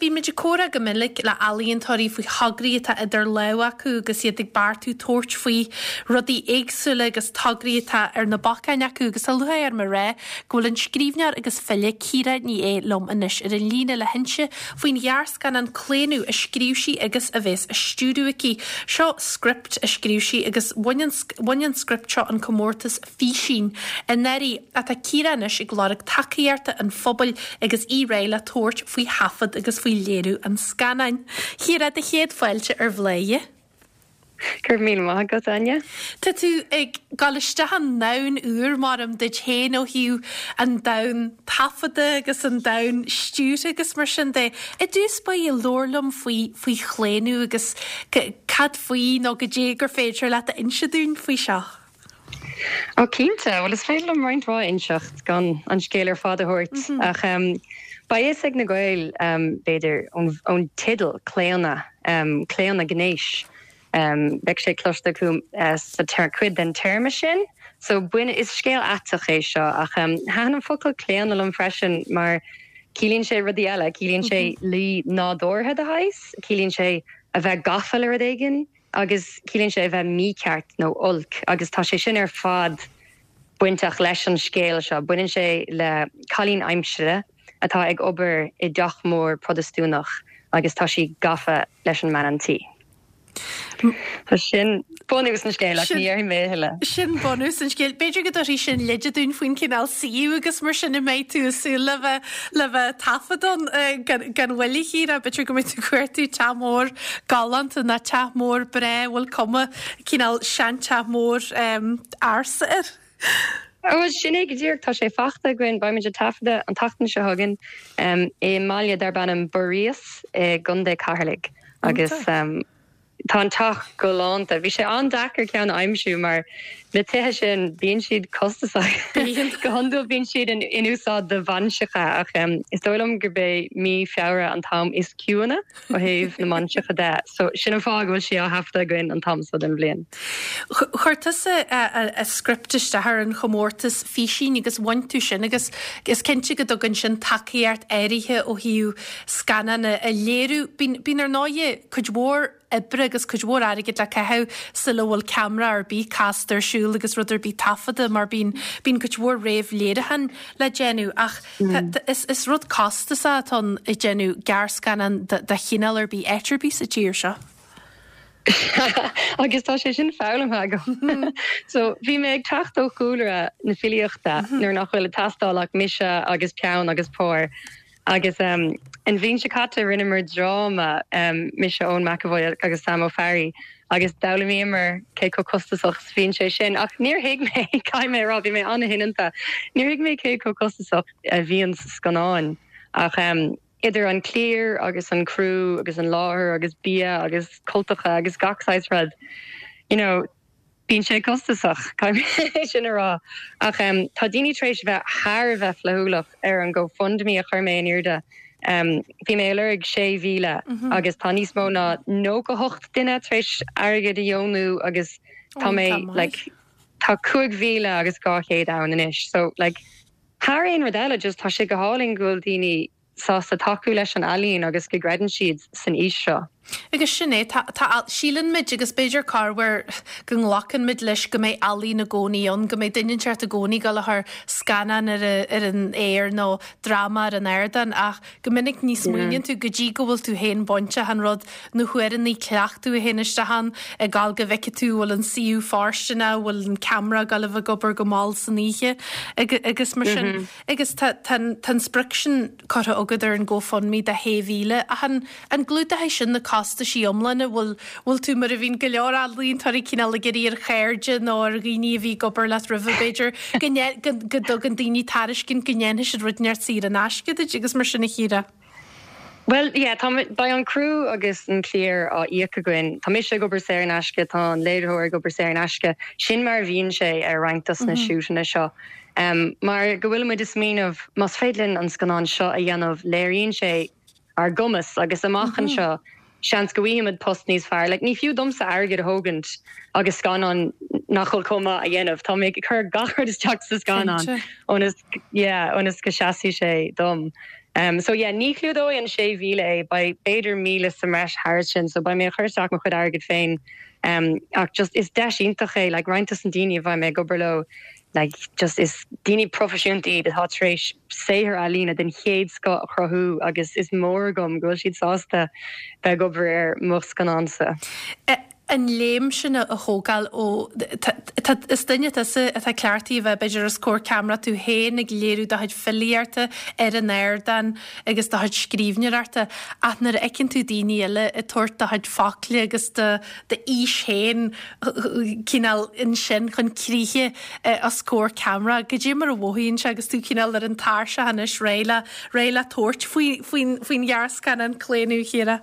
bíonn muid ag comhrá go minic le ealaíontóirí faoi thograí atá idir lámha acu agus iad ag beartú tabhairt faoi rudaí éagsúla agus tograí atá ar na bacáin acu agus tá lúcháir orm a rá go bhfuil an scríbhneoir agus file Ciara Ní É liom anois ar an líne le hinse faoin ghearrscannán Claonadh a scríobh sí agus a bheas á stiúradh aici. Seo script a scríobh sí agus bhain an bhain an script seo an comórtas Físín anuraidh. Ach tá Ciara anois ag lorg tacaíochta an phobail agus í réidh le tabhairt faoi thaifead agus faoi léiriú an scannáin. A Chiara, do chéad fáilte ar Bhladhaire. Go raibh míle maith agat, Áine. Tá tú ag dul isteach i ndomhan úr, maram, duit féin ó thaobh an domhan taifeadta agus an domhan stiúrtha agus mar sin de. I dtús báire, labhair liom faoi faoi Chlaonadh agus cad faoi nó goidé gur féidir leat a inse dúinn faoi seo. Ó cinnte, bhuel is féidir liom roinnt mhaith a inseacht gan an scéal ar fad a thabhairt ach beidh fhios ag na Gaeil b'fhéidir ón teideal Claonadh, claonadh gnéis. Beidh sé cloiste acu sa cuid den téarma sin. So bain, is scéal aiteach é seo ach thaitin an focal claonadh liom freisin mar ciallaíonn sé rudaí eile, ciallaíonn sé luí nádúrtha de shaghas, ciallaíonn sé a bheith gafa le rud éigin. agus ciallaíonn sé a bheith mícheart nó olc agus tá sé sin ar fad bainteach leis an scéal seo. Baineann sé le cailín aimsire atá ag obair i dteach mór Protastúnach agus tá sí gafa leis an mbean an tí. Sin bunús an scéil ach ní dhéarfaidh mé a thuilleadh. Sin bunús an scéil. B'fhéidir go dtabharfaidh sin leide dúinn faoin cineál suíomh agus mar sin a mbeidh tú ag súil le bheith le bheith ag taifead ann gan mhoill a Chiara. B'fhéidir go mbeidh tú ag cuartú teach mór galánta nó teach mór breá a bhfuil cuma cineál seanteach mór ársa air. Ó, sin é go díreach. Tá sé fachta againn. Beimid ag taifeadadh an tseachtain seo chugainn i mbaile darb ainm Buiríos i gContae Cheatharlaigh agus Tá an teach galánta. Bhí sé an-deacair ceann a aimsiú mar na tithe sin, bíonn siad costasach. Go hiondúil bíonn siad in úsáid do bhainseacha ach is dóigh liom gurb é mí Feabhra an t-am is ciúine ó thaobh na mbainseacha de. So sin an fáth go bhfuil sé á thaifeadadh againn an t-am seo den bhliain. Chuir tusa a script isteach ar an chomórtas físín agus bhain tú sin agus is cinnte go dtugann sin tacaíocht áirithe ó thaobh scannán a léiriú. Bíonn ar ndóighe cuid mhór oibre agus cuid mhór airgid le caitheamh sula bhfuil ceamara ar bith casta ar siúl agus rud ar bith taifeadta mar bíonn bíonn cuid mhór réamh-léiriúchán le déanamh ach is is rud costasach atá ann ag déanamh gearrscannán de chineál ar bith áit ar bith sa tír seo. Agus tá sé sin foghlamtha agam. So bhí mé ag teacht ó chúlra na filíochta nuair nach bhfuil ag teastáil ach mise agus peann agus pár. Agus an bhliain seo caite rinneamar dráma, mise, Eoin McEvoy agus Sam Ó Fearraigh, agus d'fhoghlaimíomar cé chomh costasach is a bhíonn sé sin. Ach níor thuig mé, caithfidh mé a rá, bhí mé an-shoineanta, níor thuig mé cé chomh costasach a bhíonn scannáin. Ach idir an cliar agus an criú agus an láthair agus bia agus cultacha agus gach saghas rud, you know, Bíonn sé costasach, caithfidh mé sin a rá. Ach tá daoine tar éis a bheith thar a bheith flaithiúlach ar an GoFundMe a chuir mé in airde. Bhí mé ag lorg 6,000 agus tá níos mó ná 98 duine tar éis airgead a dheonú agus tá mé like tá 5,200 ann anois. So like thar aon rud eile just tá sé go hálainn go bhfuil daoine sásta tacú leis an ealaín agus go gcreideann siad san fhís seo. Agus sin é, tá, tá, síleann muid, agus b'fhéidir corruair go nglacann muid leis go mbeidh ealaín i gcónaí ann, go mbeidh duine inteacht i gcónaí ag dul a chur scannán ar, ar an aer nó dráma ar an ardán ach go minic ní smaoiníonn tú go dtí go bhfuil tú féin bainteach an rud, na huaireanna cleachtaidh a théann isteach ann, ag gabháil go bhfeicfidh tú bhfuil an suíomh fóirsteanach, bhfuil an ceamara ag gabháil a bheith ag obair go mall san oíche agus mar sin. Agus tá tá an sprioc sin curtha agat ar an GoFundMe de 6,000, ach an an gclúdóidh sin na costaisí iomlána? Bhfuil bhfuil tú mar a bhíonn go leor ealaíontóirí cineál ag iarraidh ar chairde nó ar dhaoine a bhí ag obair leat roimhe b'fhéidir go go go dtugann daoine tairiscint go ndéanfaidh siad rud inteacht saor in aisce duit agus mar sin a Chiara? Bhuel, yeah, tá, beidh an criú agus an cliar á íoc againn. Tá mise ag obair saor in aisce, tá an léiritheoir ag obair saor in aisce. Sin mar a bhíonn sé ar roinnt dos na siúteanna seo. Mar go bhfuil muid ag smaoineamh, más féidir linn an scannán seo a dhéanamh, léiríonn sé ár gcumas agus amach anseo, seans go bhfaighimid post níos fearr. Like, ní fiú domsa airgead a thógaint agus scannán nach bhfuil chomh maith a dhéanamh. Tá mé ag cur gach rud isteach sa scannán ionas, yeah, ionas go seasfaidh sé dom. So yeah, ní chlúdóidh an 6,000 é, beidh b'fhéidir 1,000 sa mbreis thairis sin, so beidh mé ag cur isteach mo chuid airgid féin. Ach just is deis iontach é, like roinnt dos na daoine a bheidh mé ag obair leo, like just is daoine proifisiúnta iad atá tar éis saothar ealaíne den chéad scoth a chruthú agus is mór agam go bhfuil siad sásta bheith ag obair ar mo scannánsa. An léim sin a thógáil ó, tá, is duine tusa atá cleachtaithe a bheith b'fhéidir os comhair ceamara tú féin ag léiriú do chuid filíochta ar an ardán agus do chuid scríbhneoireachta ach nuair a fheiceann tú daoine eile ag tabhairt do chuid focla agus do d'fhís féin cineál ansin chun críche os comhair ceamara. Goidé mar a mhothaíonn sé agus tú cineál ar an tairseach anois réidh le, réidh le tabhairt faoi, faoin, faoin ghearrscannán Claonadh, a Chiara?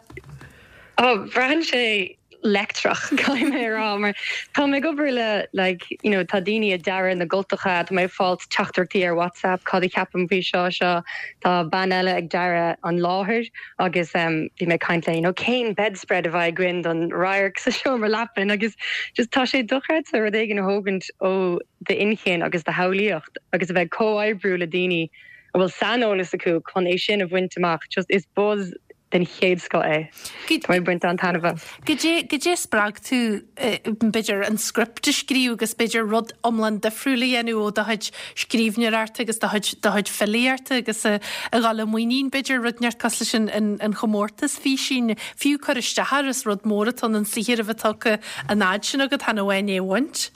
Oh, braitheann sé leictreach, caithfidh mé a rá, mar tá mé ag obair le, like, you know, tá daoine ag dearadh na gcultacha, tá mé ag fáilt teachtaireachtaí ar WhatsApp, cad a cheapaim faoi seo, seo, tá bean eile ag dearadh an láthair agus bhí mé ag caint léi, you know, cén bedspread a bheidh againn don radharc sa seomra leapan agus just tá sé dochreidte rud éigin a thógaint ó d'inchinn agus do shamhlaíocht agus a bheith ag comhoibriú le daoine a bhfuil saineolas acu chun é sin a bhaint amach, just is buzz den chéad scoth é. Tá mé ag baint an-taitneamh as. Goidé, goidé a spreag tú, b'fhéidir, an script a scríobh agus b'fhéidir rud iomlán difriúil a dhéanamh ó do chuid scríbhneoireachta agus do chuid, do chuid filíochta agus a dhul i muinín, b'fhéidir, rud inteacht cosúil leis an, an, an chomórtas físín, fiú cur isteach air, is rud mór atá ann an saothar a bheith tugtha an fhad sin agat chan amháin é a bhaint.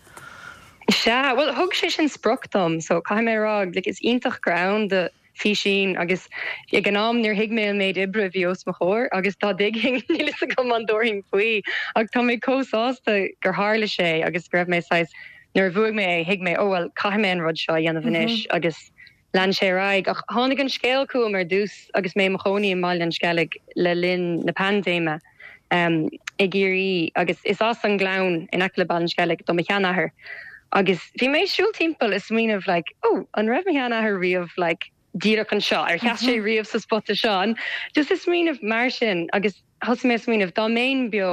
Sea, bhuel, thug sé sin sprioc dom, so caithfidh mé a rá, like, is iontach gur ann do físín agus ag an am níor thuig mé an méid oibre a bhí os mo chomhair agus dá dtuigfinn níl fhios agam an dtabharfainn faoi ach tá mé chomh sásta gur tharla sé agus go raibh mé saghas nuair a bhuaigh mé é thuig mé oh well caithfidh mé an rud seo a dhéanamh anois agus lean sé ar aghaidh ach tháinig an scéal chugam ar dtús agus mé i mo chónaí i mBaile an Sceilg le linn na paindéime i gCiarraí agus is as an nGleann in aice le Baile an Sceilg do mo sheanathair agus bhí mé ag siúl timpeall ag smaoineamh like oh an raibh mo sheanathair riamh like díreach anseo, ar sheas sé riamh sa spota seo an just ag smaoineamh mar sin agus thosaigh mé ag smaoineamh dá mbeinn beo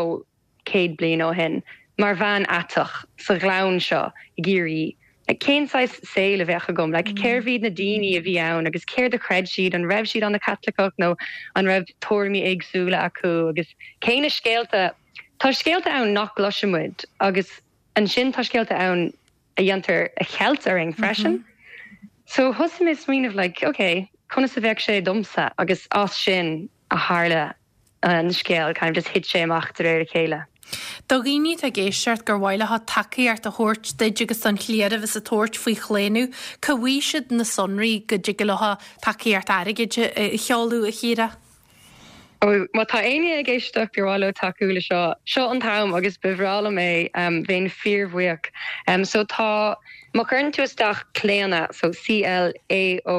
100 bliain ó shin mar bhean aiteach sa ghleann seo i gCiarraí Like, cén saghas saoil a bheadh agam? Like, cérbh iad na daoine a bhí ann agus céard a chreid siad? An raibh siad ana-Chaitliceach nó an raibh tuairimí éagsúla acu? Agus cé na scéalta, tá scéalta ann nach gcloiseann muid agus ansin tá scéalta ann a dhéantar a cheilt orainn freisin. So thosaigh mé ag smaoineamh like, ok, conas a bheadh sé domsa? Agus as sin a tharla an scéal, kind of just thit sé amach de réir a chéile. Do dhaoine atá ag éisteacht gur mhaith leo tacaíocht a thabhairt duit agus don chliar a bheas ag tabhairt faoi Chlaonadh, cá bhfaighidh siad na sonraí go dtig leo tacaíocht airgid a sheoladh, a Chiara? Ó, má tá éinne ag éisteacht gur mhaith leo tacú le seo, seo an t-am agus ba bhreá liom é, bheinn fíorbhuíoch. So tá, má chuireann tú isteach Claonadh, so C-L-A-O-N-A-D-H,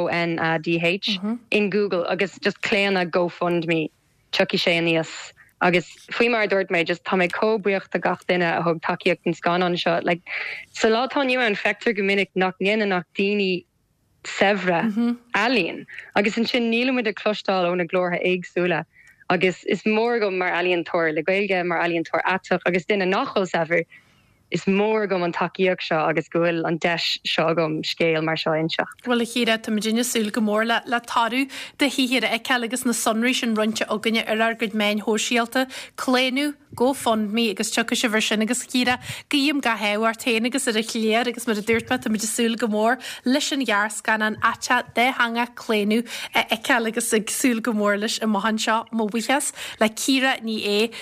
in Google agus just Claonadh GoFundMe, tiocfaidh sé aníos. Agus faoi mar a dúirt mé, just tá mé chomh buíoch do gach duine a thug tacaíocht don scannán seo. Like, sa lá atá inniu ann, feictear go minic nach ndéanann ach daoine saibhre ealaín agus ansin nílimid ag cloisteáil ó na glórtha éagsúla agus is mór agam mar ealaíontóir le Gaeilge, mar ealaíontóir aiteach agus duine nach bhfuil saibhir, is mór agam an tacaíocht seo agus go bhfuil an deis seo agam scéal mar seo a inseacht. Bhuel, a Chiara, táimid ag súil go mór le le toradh do shaothair a fheiceáil agus na sonraí sin roinnte againne ar ár gcuid meáin shóisialta. Claonadh, GoFundMe agus tiocfaidh sibh air sin agus a Chiara, guím gach ádh ort féin agus ar an chliar agus mar a dúirt mé, táimid ag súil go mór leis an ghearrscannán aiteach dátheangach Claonadh a fheiceáil agus ag súil go mór leis amach anseo. Mo bhuíochas le Ciara Ní É.